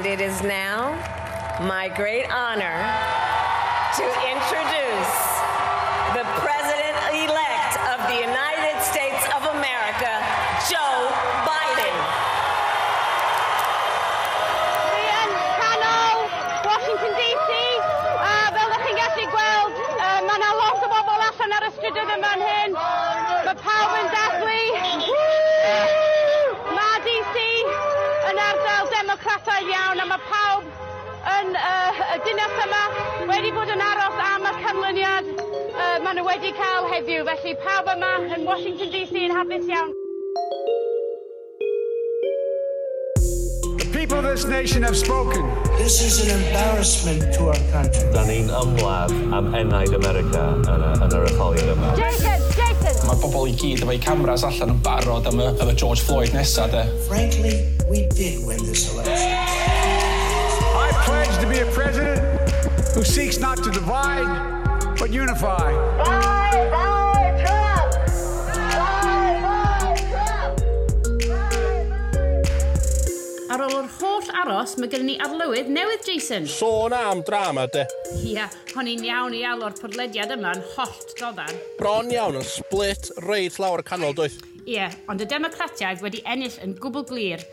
And it is now my great honor to introduce the President-elect of the United States of America, Joe Biden. Dwi yn canol Washington DC, a fel ydych chi'n gallu gweld, mae yna lot o bobl allan ar y strydoedd yma yn hyn. Mae pawb yn dathlu. Mae DC yn ardal democrataidd iawn a mae pawb yn y dinas yma wedi bod yn aros am y canlyniad maen nhw wedi cael heddiw. Felly pawb yma yn Washington DC yn hapus iawn. The people of this nation have spoken. This is an embarrassment to our country. Da ni'n ymladd am enaid America yn yr etholiad yma. Jason! Jason! Mae bobl i gyd efo'u cameras allan yn barod am y George Floyd nesa, de. Frankly, we did win this election. I pledge to be a president who seeks not to divide, but unify. Bye, bye, Trump! Bye, bye, Trump! Ar ôl yr holl aros, mae gennym ni arlywydd newydd, Jason. Sôn am drama, de. Ia, hon i'n iawn i alw'r podlediad yma yn hollt doddan. Bron iawn yn split reit lawr y canol, doedd. Ie, ond y Democratiaid wedi ennill yn gwbl glir.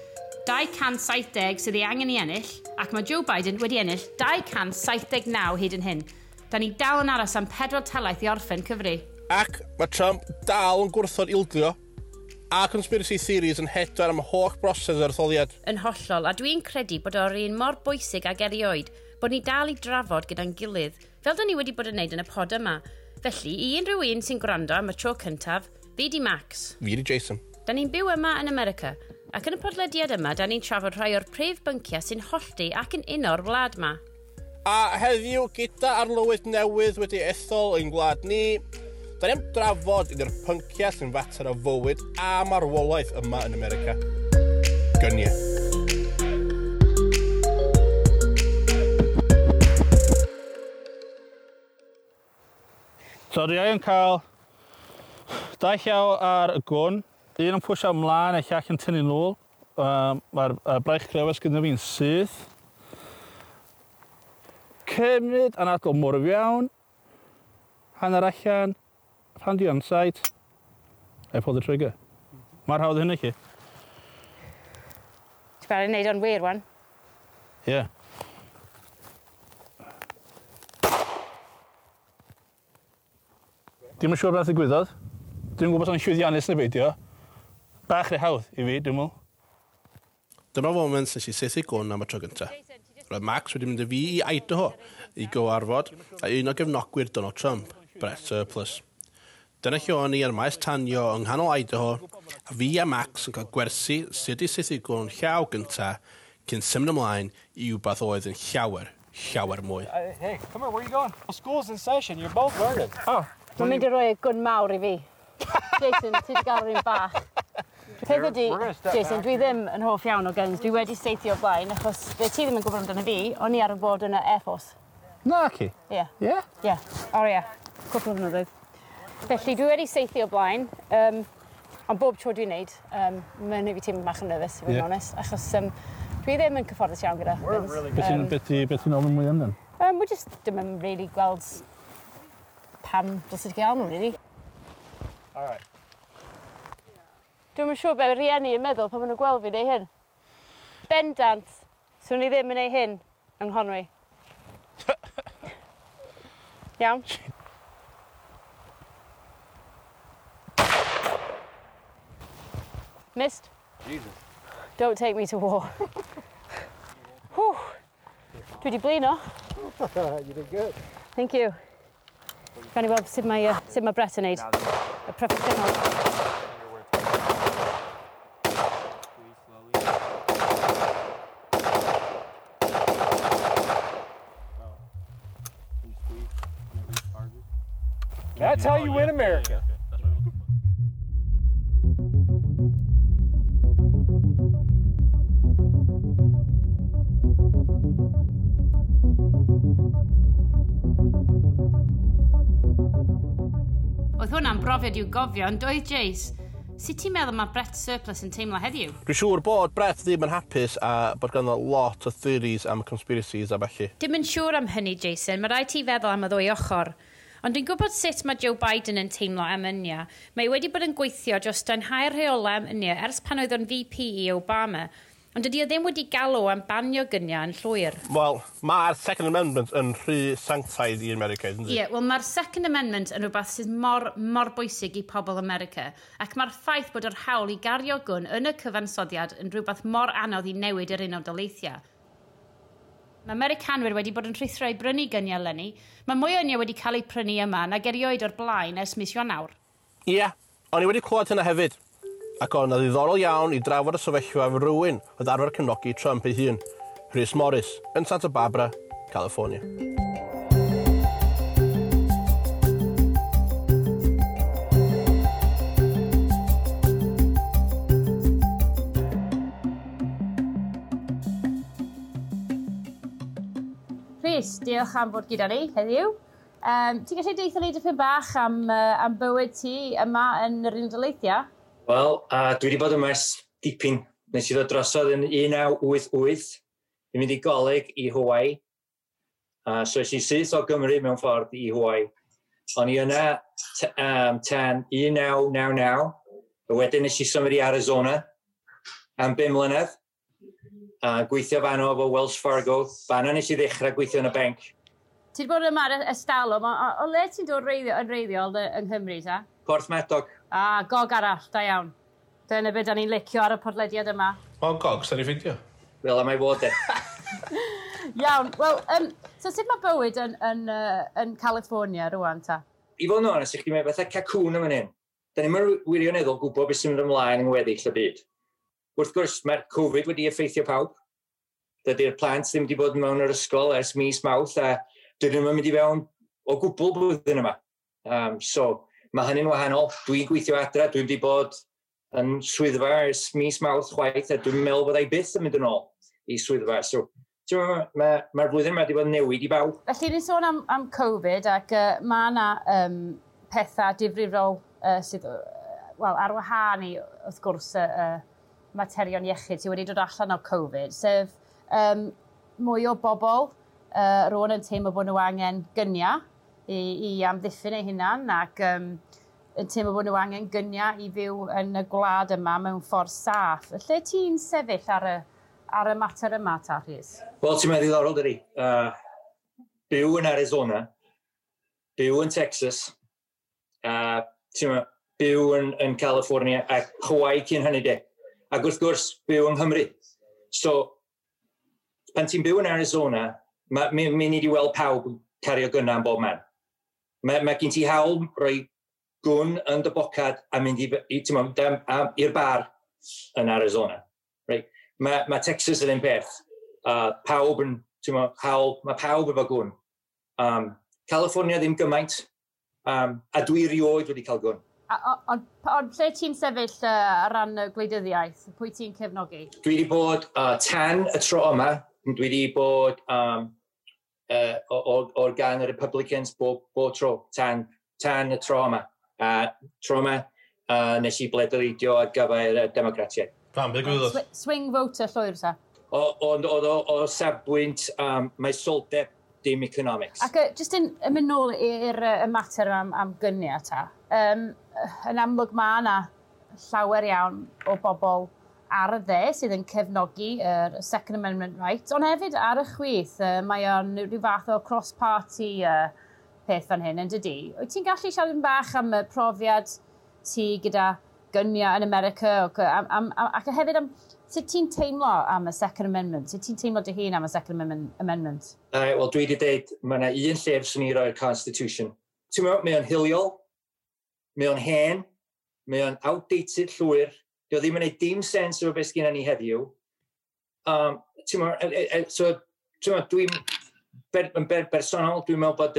270 sydd ei angen i ennill, ac mae Joe Biden wedi ennill 279 hyd yn hyn. Da ni dal yn aros am 4 talaith i orffen cyfri. Ac mae Trump dal yn gwrthod ildio, a conspiracy theories yn hedfan am holl broses yr etholiad. Yn hollol, a dwi'n credu bod o'r un mor bwysig ag erioed, bod ni dal i drafod gyda'n gilydd, fel da ni wedi bod yn neud yn y pod yma. Felly, i unrhyw un sy'n gwrando am y tro cyntaf, fi di Max. Fi di Jason. Da ni'n byw yma yn America, ac yn y podlediad yma, da ni'n trafod rhai o'r prif bynciau sy'n hollti ac yn uno'r wlad ma. A heddiw, gyda arlywydd newydd wedi ethol ein gwlad ni, da ni am drafod un o'r pynciau sy'n fater o fywyd a marwolaeth yma yn America. Gyniau. So dwi yn cael dau llaw ar y gwn, un yn pwysio ymlaen a llall yn tynnu nôl. Mae'r braich crefas gyda fi'n syth. Cymryd anadl mor iawn, hanner allan, pan dwi on sight, I pull the trigger. Mae'r hawdd hynny chi. Ti'n barod i wneud o'n wir, wan? Ie. Yeah. Dwi'm yn siŵr beth ddigwyddodd. Dwi'm yn gwybod os o'n llwyddiannus neu beidio. Bach rhy hawdd i fi, dwi'n meddwl. Dyma foment nes i saethu gwn am y tro gyntaf. Roedd Max wedi mynd â fi i Idaho i gyfarfod a un o gefnogwyr Donald Trump, Brett Surplus. Dyna lle o'n i ar maes tanio yng nghanol Idaho, a fi a Max yn cael gwersi sut i saethu gwn llaw gyntaf cyn symud ymlaen i wbath oedd yn llawer, llawer mwy. Hey, come here, where are you going? Well, school's in session, you're both learning. Oh. Mae'n mynd i roi y gwn mawr i fi. Jason, ti wedi gael yr un bach. Peth ydi, Jason, dwi ddim yn hoff iawn o guns. Dwi wedi saethu o blaen, achos be ti ddim yn gwybod amdano fi, o'n i ar y bod yn y Air Force. Na, ci? Ie. Ie? Ie. O ie. Cwpl o flynyddoedd. Felly, dwi wedi saethu o blaen, ond bob tro dwi'n neud, mae'n neud fi teimlo bach yn nervous, i fod yn onest, achos dwi ddim yn cyfforddus iawn gyda guns. Beth ti'n ofyn mwy amdan? We just ddim yn really gweld pam dylse ti gael nhw, really. All right. Dwi'm yn siŵr be rieni yn meddwl pan maen nhw'n gweld fi neu hyn. Bendant, swn i ddim yn neud hyn yng Nghonwy. Iawn? Missed? Jesus. Don't take me to war. Whew. Dwi wedi blino. You did good. Thank you. Gawn ni weld sut mae Brett yn neud. Y proffesiynol. That's how you win America. Oedd hwnna'n brofiad i'w gofio, ond doedd Jace. Sut ti'n meddwl mae Brett Surplus yn teimlo heddiw? Dwi'n siŵr bod Brett ddim yn hapus a bod ganddo lot o theories am conspiracies a ballu. Dim yn siŵr am hynny, Jason. Mae rhaid ti feddwl am y ddwy ochr. Ond dwi'n gwybod sut mae Joe Biden yn teimlo am ynia. Mae wedi bod yn gweithio dros danhau'r rheolau am ynia ers pan oedd o'n VP i Obama. Ond dydy o ddim wedi galw am banio gyniau yn llwyr. Wel, mae'r Second Amendment yn rhy sanctaidd i America, ynddi? Ie, yeah, wel mae'r Second Amendment yn rhywbeth sydd mor, mor bwysig i pobl America, ac mae'r ffaith bod yr hawl i gario gwn yn y cyfansoddiad yn rhywbeth mor anodd i newid yr Unol Daleithiau. Mae Americanwyr wedi bod yn rhuthro i brynu gyniau eleni. Mae mwy o gyniau wedi cael eu prynu yma nag erioed o'r blaen ers mis Ionawr. Ie, yeah, o'n i wedi clywed hynna hefyd. Ac o'n ddiddorol iawn i drafod y sefyllfa efo rhywun oedd arfer cefnogi Trump ei hun, Rhys Morris, yn Santa Barbara, California. Rhys, diolch am fod gyda ni heddiw. Ti'n gallu deithio ni dipyn bach am, am bywyd ti yma yn yr Unol Daleithiau? Wel, dwi wedi bod yma ers dipyn. Nes i ddod drosodd yn 1988 i mynd i goleg i Hawaii. So es i syth o Gymru mewn ffordd i Hawaii. O'n i yna tan 1999. A wedyn nes i symud i Arizona am 5 mlynedd. Gweithio fanno efo Wells Fargo. Fanno nes i ddechrau gweithio yn y banc. Ti wedi bod yma ers talwm, o le ti'n dod yn reiddiol yng Nghymru, ta? Porthmadog. Ah, gog arall, da iawn. Dyna beth da ni'n licio ar y podlediad yma. Mae'n gog, sa'n i ffeindio. Fel am ei fod e. Iawn, wel, so sut mae bywyd yn California rwan, ta? I fod yn onest, i chdi, mae fatha cacwn yma hyn. Da ni'n wirioneddol gwybod beth sy'n mynd ymlaen yng ngweddill y byd. Wrth gwrs, mae'r Covid wedi effeithio pawb. Dydy'r plant ddim wedi bod mewn yr ysgol ers mis Mawrth, a dydyn nhw'n mynd i fewn o gwbl blwyddyn yma. So, mae hynny'n wahanol. Dwi'n gweithio adra, dwi'n wedi bod yn swyddfa ers mis Mawrth chwaith, a dwi'n meddwl bod ei byth yn mynd yn ôl i swyddfa. So, mae'r flwyddyn yma wedi bod yn newid i bawb. Felly, ni'n sôn am Covid, ac mae yna pethau difrifol sydd, wel, ar wahân i, wrth gwrs, materion iechyd sydd wedi dod allan o Covid, sef mwy o bobl rwan yn teimlo bod nhw angen gyniau i amddiffyn eu hunan, ac yn teimlo bod nhw angen gyniau i fyw yn y gwlad yma mewn ffordd saff. Lle ti'n sefyll ar y mater yma, ta, Rhys? Wel, ti'n meddwl ddiddorol, dydi. Byw yn Arizona, byw yn Texas, ti'n meddwl, byw yn California, a Hawaii cyn hynny de. Ac wrth gwrs, byw yng Nghymru. So, pan ti'n byw yn Arizona, mi ni wedi weld pawb cario gynna yn bob man. Mae gen ti hawl rhoi gwn yn dy bocad a mynd i'r bar yn Arizona. Right? Mae Texas yn un peth. Pawb yn, hawl, mae pawb efo gwn. California ddim gymaint, a dwi rioed wedi cael gwn. Ond lle ti'n sefyll ar ran y gwleidyddiaeth? Pwy ti'n cefnogi? Dwi wedi bod tan y tro yma, dwi wedi bod o'r gan y Republicans bob tro, tan y tro yma. Tro yma, nes i bleidleisio ar gyfer y Democratiaid. Pam, beth gwybod? Swing voter llwyr, ta? Ond o safbwynt, mae soldeb dim economics. Ac jyst yn mynd nôl i'r mater am gyniau, ta. Yn amlwg mae yna llawer iawn o bobl ar y dde sydd yn cefnogi yr Second Amendment right, ond hefyd ar y chwith, mae o'n rhyw fath o cross-party peth fan hyn, yn dydi? Wyt ti'n gallu siarad yn bach am y profiad ti gyda gyniau yn America, ac hefyd am sut ti'n teimlo am y Second Amendment? Sut ti'n teimlo dy hun am y Second Amendment? Wel, dwi wedi dweud, mae yna un lle fyswn i roi'r Constitution. Ti'n meddwl, mae o'n hiliol, mae o'n hen, mae o'n outdated llwyr, dio ddim yn gwneud dim sens efo beth sgynna ni heddiw. Ti'n meddwl, so, ti'n meddwl, dwi'n yn bersonol, dwi'n meddwl bod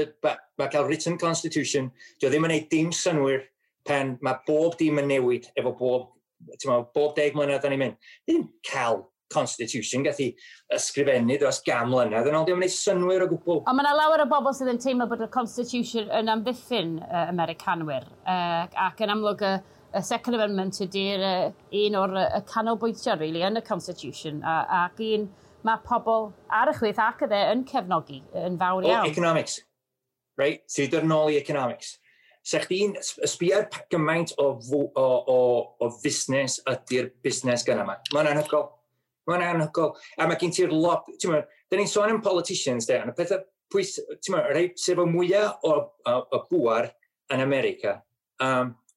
mae cael written constitution, dio ddim yn gwneud dim synnwyr pan mae bob dim yn newid efo bob, ti'n meddwl, bob 10 mlynedd da ni'n mynd. Ddim cael constitution gath i ysgrifennu dros 100 mlynedd yn ôl, ddim yn gwneud synnwyr o gwbl. Ond mae yna lawer o bobl sydd yn teimlo bod y constitution yn amddiffyn Americanwyr, ac yn amlwg Y Second Amendment ydy'r un o'r y canolbwyntio, really, yn y Constitution, ac un mae pobl ar y chwith ac y dde yn cefnogi yn fawr iawn. Oh, economics, right? Ti'n dod nôl i economics. Sa chdi'n sbio ar gymaint o fusnes ydy'r busnes gyna yma. Mae'n anhygoel. Mae'n anhygoel. A mae gen ti'r lot... Ti'n meddwl, da ni'n sôn am politicians, de, ond y pethau pwys... Ti'n meddwl, rhai sef o mwyaf o bŵar yn America,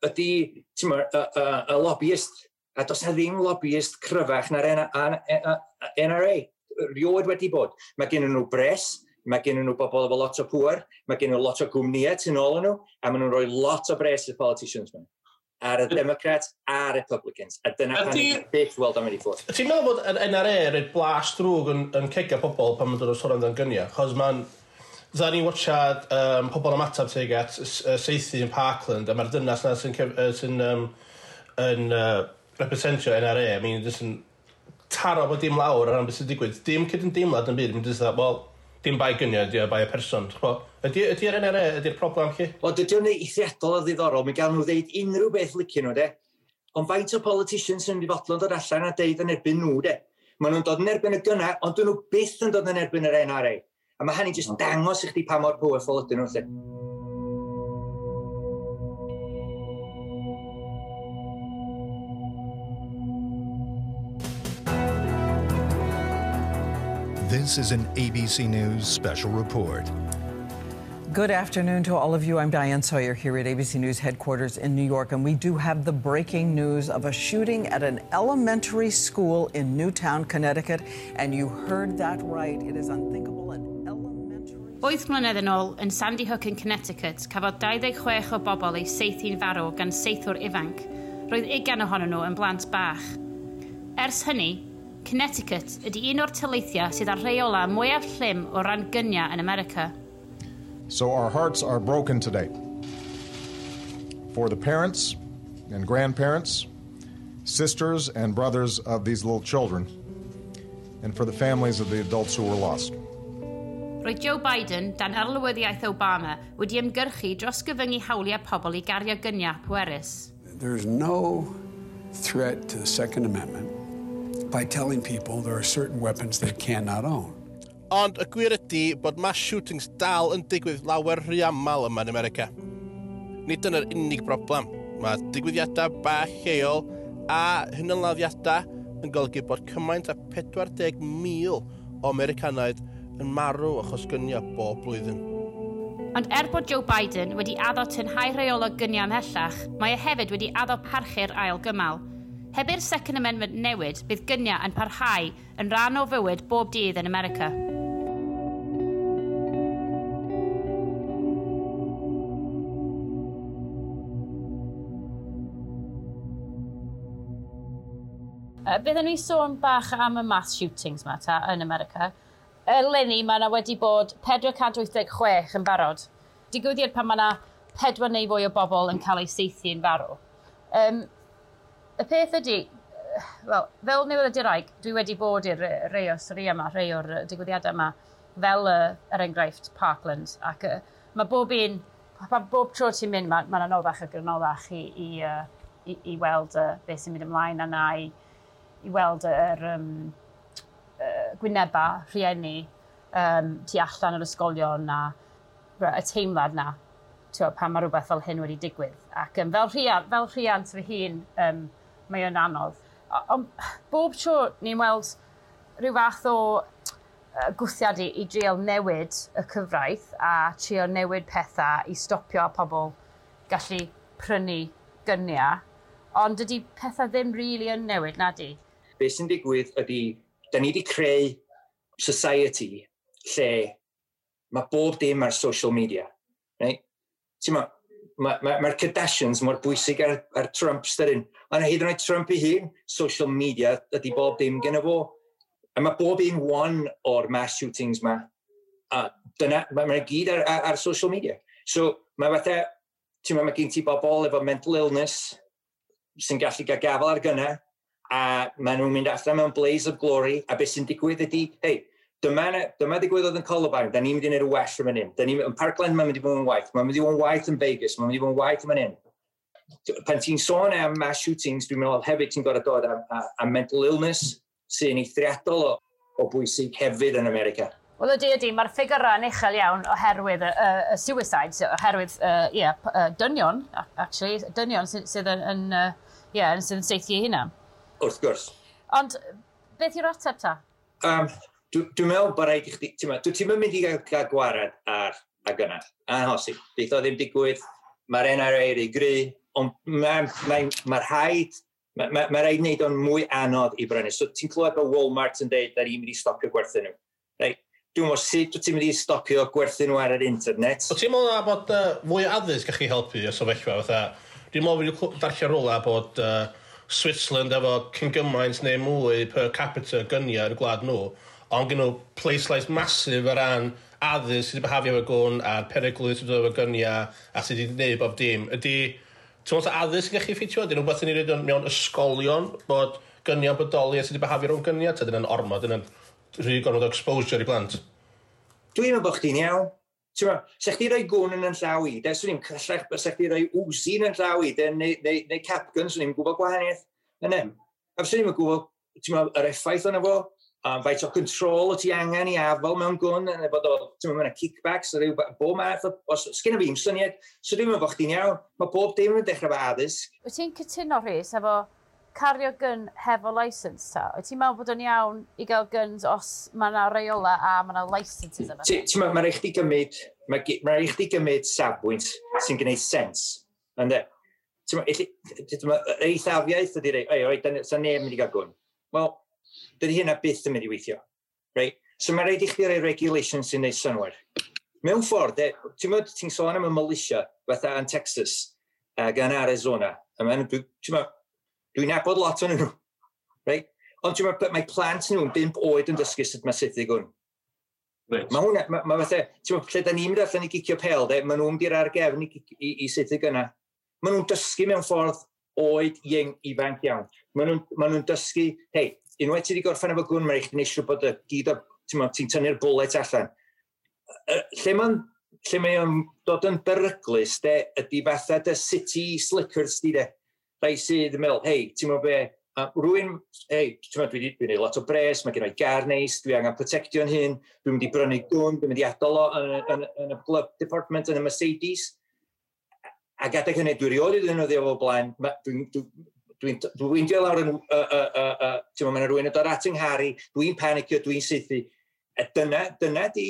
ydy, ti'n meddwl, y lobbyist. A does na ddim lobbyist cryfach na'r NRA. Rioed wedi bod. Mae gen nhw bres, mae gen nhw bobl efo lot o pŵer, mae gen nhw lot o gwmnïau tu nôl nhw, a maen nhw'n rhoi lot o bres i'r politicians yma. Ar y Democrats a'r Republicans. A dyna pan ni'n byth weld am wedi ffwrdd. Ti'n meddwl bod yr NRA yn rhoi blas drwg yn cega pobl pan maen dod o sôn amdan gyniau? Chos mae'n... Dda ni'n watchad pobl ymateb tuag at saethu yn Parkland, a mae'r dynas na sy'n representio NRA, I mean, jyst yn taro bod dim lawr ar ran beth sy'n digwydd. Dim cydymdeimlad yn byd, mae'n jyst dda, wel, dim bai gyniau, ydy o bai y person. Ydy'r NRA, ydy'r problem chi? Wel, dydy o'n eithriadol o ddiddorol, mi gael nhw ddeud unrhyw beth licio nhw, de. Ond faint o politicians sy'n mynd i fodlon dod allan a deud yn erbyn nhw, de. Maen nhw'n dod yn erbyn y gynna, ond dyn nhw byth yn dod yn erbyn yr NRA. A mae hynny jyst dangos i chdi pa mor powerful ydyn nhw, lle. This is an ABC News special report. Good afternoon to all of you. I'm Diane Sawyer here at ABC News headquarters in New York, and we do have the breaking news of a shooting at an elementary school in Newtown, Connecticut. And you heard that right. It is unthinkable. An elementary... 8 mlynedd yn ôl, yn Sandy Hook yn Connecticut, cafodd 26 o bobl eu saethu'n farw gan saethwr ifanc. Roedd 20 ohonyn nhw yn blant bach. Ers hynny, Connecticut ydy un o'r taleithiau sydd â'r rheola mwyaf llym o ran gyniau yn America. So our hearts are broken today for the parents and grandparents, sisters and brothers of these little children, and for the families of the adults who were lost. Roedd Joe Biden, dan arlywyddiaeth Obama, wedi ymgyrchu dros gyfyngu hawliau pobl i gario gyniau pwerus. There's no threat to the Second Amendment by telling people there are certain weapons they cannot own. Ond y gwir ydy bod mass shootings dal yn digwydd lawer rhy aml yma yn America. Nid dyna'r unig broblem. Mae digwyddiadau bach lleol a hunanladdiadau yn golygu bod cymaint â 40,000 o Americanaid yn marw achos gyniau bob blwyddyn. Ond er bod Joe Biden wedi addo tynhau rheolau gyniau ymhellach, mae e hefyd wedi addo parchu'r ail gymal. Heb i'r Second Amendment newid, bydd gyniau yn parhau yn rhan o fywyd bob dydd yn America. Byddwn ni sôn bach am y mass shootings ma ta yn America. Eleni mae yna wedi bod 486 yn barod. Digwyddiad pan mae yna pedwar neu fwy o bobl yn cael eu saethu yn farw. Y peth ydy, wel, fel newyddiadurwraig, dwi wedi bod i'r rei o stori yma, rei o'r digwyddiadau yma, fel er enghraifft Parkland. Ac mae bob un, bob tro ti'n mynd, mae'n anoddach ac anoddach i weld beth sy'n mynd ymlaen a na i weld yr gwyneba rhieni tu allan o'r ysgolion a y teimlad na, ti'n pan mae rhywbeth fel hyn wedi digwydd. Ac fel rhiant fy hun, mae o'n anodd. Ond bob tro ni'n weld rhyw fath o gwthiad i drial newid y cyfraith a trio newid pethau i stopio pobl gallu prynu gyniau, ond dydy pethau ddim really yn newid, na di? Be sy'n digwydd ydy, da ni wedi creu society lle mae bob dim ar social media. Right? Ti'n ma, mae'r Kardashians mor bwysig ar Trump styryn. Ond hyd yn oed Trump ei hun, social media ydy bob dim gen fo. A mae bob un one o'r mass shootings ma. A dyna, mae gyd ar social media. So mae fatha, ti'n ma, mae gen ti bobl efo mental illness sy'n gallu gael gafel ar gynna, a maen nhw'n mynd allan mewn blaze of glory, a beth sy'n digwydd ydy, hei, dyma digwyddodd yn Columbine, da ni'n mynd i wneud y well yn fan hyn. Da ni, yn Parkland mae'n mynd i fod yn waith, mae'n mynd i fod yn waith yn Vegas, mae'n mynd i fod yn waith yn fan hyn. Pan ti'n sôn am mass shootings, dwi'n meddwl hefyd ti'n gorfod dod am mental illness sy'n eithriadol o bwysig hefyd yn America. Wel ydy, mae'r ffigurau yn uchel iawn oherwydd y suicides, oherwydd yeah, dynion, actually, dynion sydd yn, yeah, sydd yn saethu eu hunan. Wrth gwrs. Ond beth yw'r ateb ta? Dwi'n meddwl bod rhaid i chdi, ti'n meddwl, ti'n mynd i gael gwared ar a gynna. Anhosib. Bydd o ddim digwydd, mae'r NRA rhy gry, ond mae rhaid wneud o'n mwy anodd i brynu. So ti'n clywed bod Walmart yn deud da ni'n mynd i stopio gwerthu nhw. Right? Dwi'n meddwl sut wyt ti'n mynd i stopio gwerthu nhw ar yr internet? O ti'n meddwl bod fwy o addysg gallu helpu y sefyllfa? Fatha, dwi'n meddwl wedi darllen rhywle bod Switzerland efo cyn gymaint neu mwy per capita gyniau yn y gwlad nhw, ond gen nhw pwyslais massive o ran addysg sydd wedi behafio efo gwn a'r peryglu sydd wedi efo gyniau a sydd wedi gwneud bob dim. Ydy, ti'n meddwl addysg yn gallu ffitio? Ydy rhywbeth yn ei wneud mewn ysgolion bod gyniau'n bodoli a sydd wedi behafio rhwng gyniau? Ta dyna'n ormod, dyna'n rhy gormod o exposure i blant? Dwi'n meddwl bod chdi'n iawn. Ti'n meddwl, sa chdi roi gwn yn yn llaw i, de, swn i'n cyllach, sa chdi roi Uzi yn yn llaw i, de, neu cap gun, swn i'n gwybod gwahaniaeth. Yna. A swn i'n gwybod, ti'n meddwl, yr effaith yna fo, faint o control o ti angen i afel mewn gwn, neu bod o, ti'n meddwl, mae'n kickbacks, rhyw, bob math o, os, sgynna fi ddim syniad, so dwi'n meddwl bod chdi'n iawn. Mae bob dim yn dechrau efo addysg. Wyt ti'n cytuno, Rhys, efo cario gun hefo licence ta? Wyt ti'n meddwl bod o'n iawn i gael guns os mae yna reola a mae yna licenses yma? Ti'n meddwl, mae'n rhaid chdi gymryd, mae rhaid chdi gymryd safbwynt sy'n gwneud sens. Ynde? Ti'n meddwl, yr eithafiaeth ydy rei, oi, oi, sa neb yn mynd i gael gwn. Wel, dydy hynna byth yn mynd i weithio. Right? So mae rhaid i chdi roi regulations sy'n gwneud synnwyr. Mewn ffordd, de, ti'n meddwl, ti'n sôn am y militia, fatha yn Texas, ac yn Arizona. A mae'n, ti'n meddwl, dwi'n nabod lot o'n nhw. Right? Ond ti'n meddwl, mae plant nhw'n 5 oed yn dysgu sut mae saethu gwn. Mae hwnna, mae fatha, ti'n meddwl, lle da ni'n mynd allan i gicio pel, de, maen nhw'n mynd i'r ar gefn i saethu gynna. Maen nhw'n dysgu mewn ffordd oed ieng ifanc iawn. Maen nhw'n dysgu, hei, unwaith ti wedi gorffen efo gwn, mae'n rhaid chdi siŵr bod y gyd o, ti'n meddwl, ti'n tynnu'r bullet allan. Lle mae o'n dod yn beryglus, de, ydy fatha dy city slickers di, de. Rai sydd yn meddwl, hei, ti'n meddwl be, rwy'n, hei, ti'n meddwl, dwi wedi lot o bres, mae gen i gar neis, dwi angen protectio'n hun, dwi'n mynd i brynu gwn, dwi'n mynd i adael o yn y glove compartment yn y Mercedes. Ac adeg hynny, dwi rioed wedi ddefnyddio fo blaen, dwi'n dwi, dwi, dwi weindio lawr yn, ti'n meddwl, mae rhywun yn dod at yng nghar i, dwi'n panicio, dwi'n saethu. A dyna di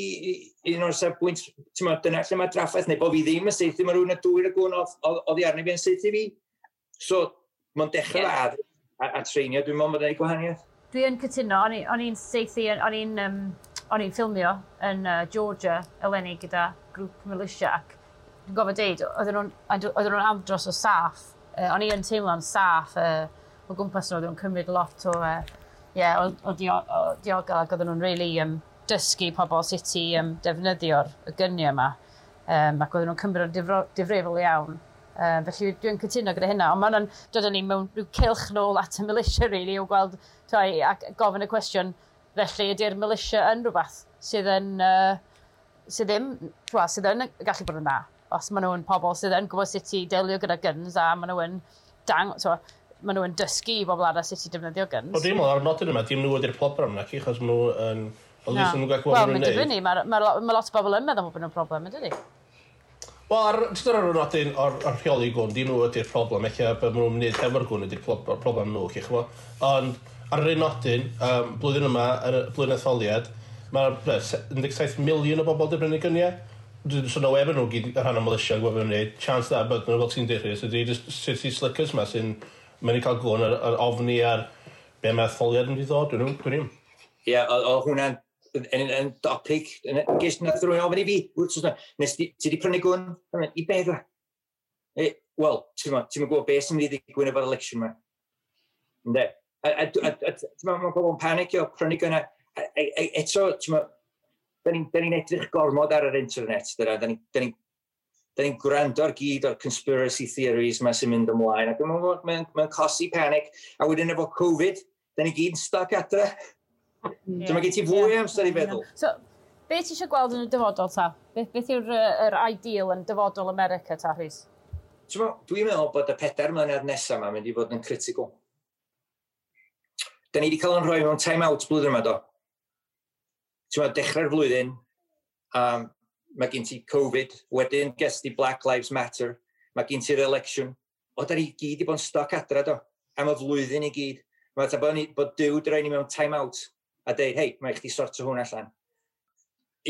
un o'r safbwynt, ti'n meddwl, dyna lle mae draffaeth, neu bod fi ddim yn saethu, mae rhywun yn dwyn y gwn oddi arni fi yn saethu fi. So, mae'n dechrau yeah. a treinio, dwi'n meddwl bod yn ei gwahaniaeth. Dwi yn cytuno, o'n i'n saethu, o'n i'n ffilmio yn Georgia eleni gyda grŵp militia ac dwi'n gofio deud, oedden nhw'n andros o saff. O'n i yn teimlo'n saff o gwmpas nhw, oedden nhw'n cymryd lot o, yeah, o diogel ac oedden nhw'n really dysgu pobl sut i defnyddio'r y gyniau yma. Ac oedden nhw'n cymryd o'n difrifol iawn. Felly dwi'n cytuno gyda hynna, ond mae'n dod â ni mewn rhyw cylch nôl at y militia, really, o gweld, toi, ac gofyn y cwestiwn, felly ydy'r militia yn rhywbeth sydd yn, sydd ddim, wel, sydd yn gallu bod yn dda, os maen nhw'n pobl sydd yn gwybod sut i delio gyda guns a maen nhw yn dang, so, maen nhw yn dysgu i bobl arall sut i defnyddio guns. Wel, dwi'n meddwl ar y nodyn yma, dim nhw ydy'r problem na, achos maen nhw yn... At least nhw'n gallu gwybod Wel, beth mae'n nhw'n neud. dibynnu, mae lot o bobl yn meddwl bod nhw'n problem, yn dydi? Wel, jyst ar y nodyn o'r rheoli gwn, dim nhw ydy'r problem, eich beth maen nhw'n wneud hefo'r gwn ydy'r problem nhw, chi chmo. Ond ar yr un nodyn, blwyddyn yma, yn y blwyddyn etholiad, mae 17 miliwn o bobl wedi brynu gyniau. So no efo nhw gyd yn rhan o militia yn gwybod beth nhw'n wneud. Chance da, bod nhw fel ti'n deud, Rhys, ydy just city slickers ma sy'n mynd i cael gwn ar ofni ar be mae etholiad yn mynd i ddod, dwi'n Ie, o hwnna'n yn topic. Ges nath rhywun ofyn i fi, wrth gwrs, nes ti di prynu gwn? I be dwa? Wel, ti'n gwybod beth sy'n mynd i ddigwydd efo'r election yma. Ynde? A ti'n mae pobl yn panicio, prynu gwn. Eto, ti'n da ni'n edrych gormod ar yr internet, dyna. Da ni'n gwrando ar gyd o'r conspiracy theories yma sy'n mynd ymlaen, ac mae'n cosi panic, a wedyn efo Covid, da ni gyd yn stuck adre. Yeah. So mae gen ti fwy amser i feddwl. So, be ti eisiau gweld yn y dyfodol ta? Beth yw'r yr ideal yn dyfodol America ta, Rhys? Dwi'n meddwl bod y 4 mlynedd nesaf yma mynd i fod yn critical. Da ni wedi cael yn rhoi mewn time-out blwyddyn yma, do. Ti'n meddwl, dechrau'r flwyddyn, mae gen ti Covid, wedyn ges ti Black Lives Matter, mae gen ti'r election. O, da ni gyd i bod yn stuck adra, do, am y flwyddyn i gyd. Mae fatha bod Duw di roi ni mewn time-out a deud, "Hei, mae chdi sorto hwn allan."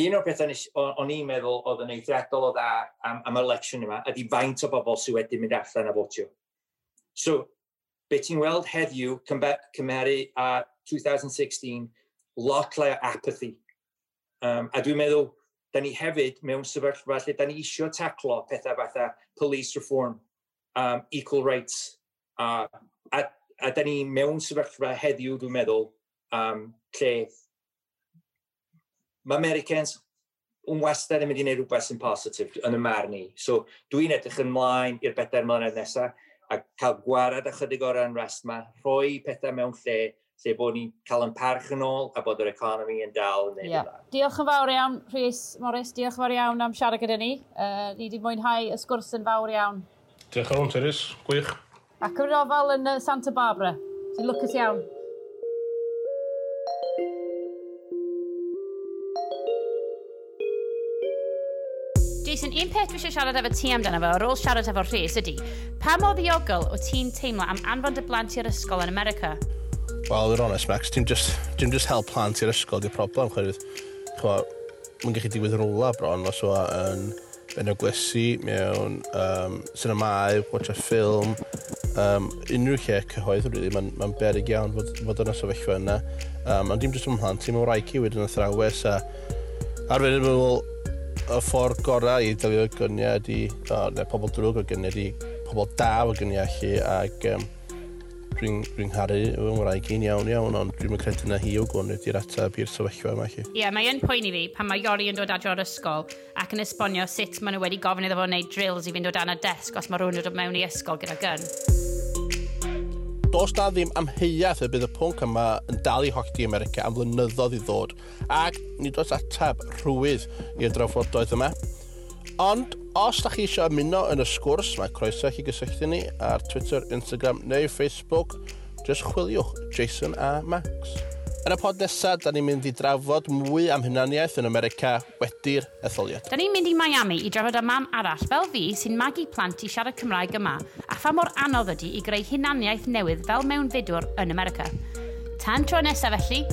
Un o'r pethau o'n i'n meddwl oedd yn eithriadol o dda am election yma ydy faint o bobl sydd wedi mynd allan a fotio. So, be ti'n weld heddiw cymharu a 2016, lot lai o apathy. A dwi'n meddwl, da ni hefyd mewn sefyllfa lle da ni isio taclo pethau fatha police reform, equal rights, a da ni mewn sefyllfa heddiw, dwi'n meddwl, lle mae Americans yn wastad yn mynd i wneud rhywbeth sy'n positif yn y marn i. So dwi'n edrych ymlaen i'r 4 mlynedd nesaf a cael gwarad ychydig o'r unrest yma, rhoi pethau mewn lle lle bod ni'n cael yn parch yn ôl a bod yr economi yn dal yn neud yeah. Diolch yn fawr iawn, Rhys Morris. Diolch yn fawr iawn am siarad gyda ni. Ni wedi mwynhau y sgwrs yn fawr iawn. Diolch yn fawr, Rhys. Gwych. Ac yn ofal yn Santa Barbara. Ti'n lwcus iawn. Jason, un peth dwi eisiau siarad efo ti amdano fo, ar ôl siarad efo Rhys, ydy, pa mor ddiogel o ti'n teimlo am anfon dy blant i'r ysgol yn America? Wel, yn honest, Max, dim just hel plant i'r ysgol di'r problem, chwerwydd. Mae'n gallu digwydd yn rwla bron, os o yn eglwysi, mewn sinemâu, watch a ffilm, unrhyw lle cyhoedd, really, mae'n beryg iawn fod yn y sefyllfa yna. Ond dim jyst ym mhlant, ti'n wraig i wedyn athrawes, a arfer yn meddwl, y ffordd gorau i delio gyniau ydi, o, neu pobl drwg o gyniau ydi, pobl da o gyniau allu, ac dwi'n caru fy ngwraig i'n iawn iawn, ond dwi'n credu na hi o gwn ydy'r ateb i'r sefyllfa yma. Ie, yeah, mae yn poeni fi pan mae Iori yn dod adre o'r ysgol ac yn esbonio sut maen nhw wedi gofyn iddo fo wneud drills i fynd o dan y desg os mae rhywun yn dod mewn i ysgol gyda gun. Does na ddim amheuaeth y bydd y pwnc yma yn dal i hollti America am flynyddoedd i ddod, ac nid oes ateb rhwydd i'r drafodaeth yma. Ond, os da chi eisiau ymuno yn y sgwrs, mae croeso i chi gysylltu ni ar Twitter, Instagram neu Facebook. Just chwiliwch Jason a Max. Yn y pod nesaf, da ni'n mynd i drafod mwy am hunaniaeth yn America wedi'r etholiad. Da ni'n mynd i Miami i drafod â mam arall fel fi sy'n magu plant i siarad Cymraeg yma a pha mor anodd ydy i greu hunaniaeth newydd fel mewnfudwr yn America. Tan tro nesaf felly,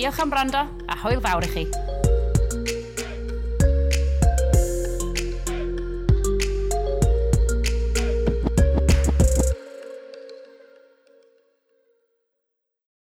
diolch am wrando a hwyl fawr i chi.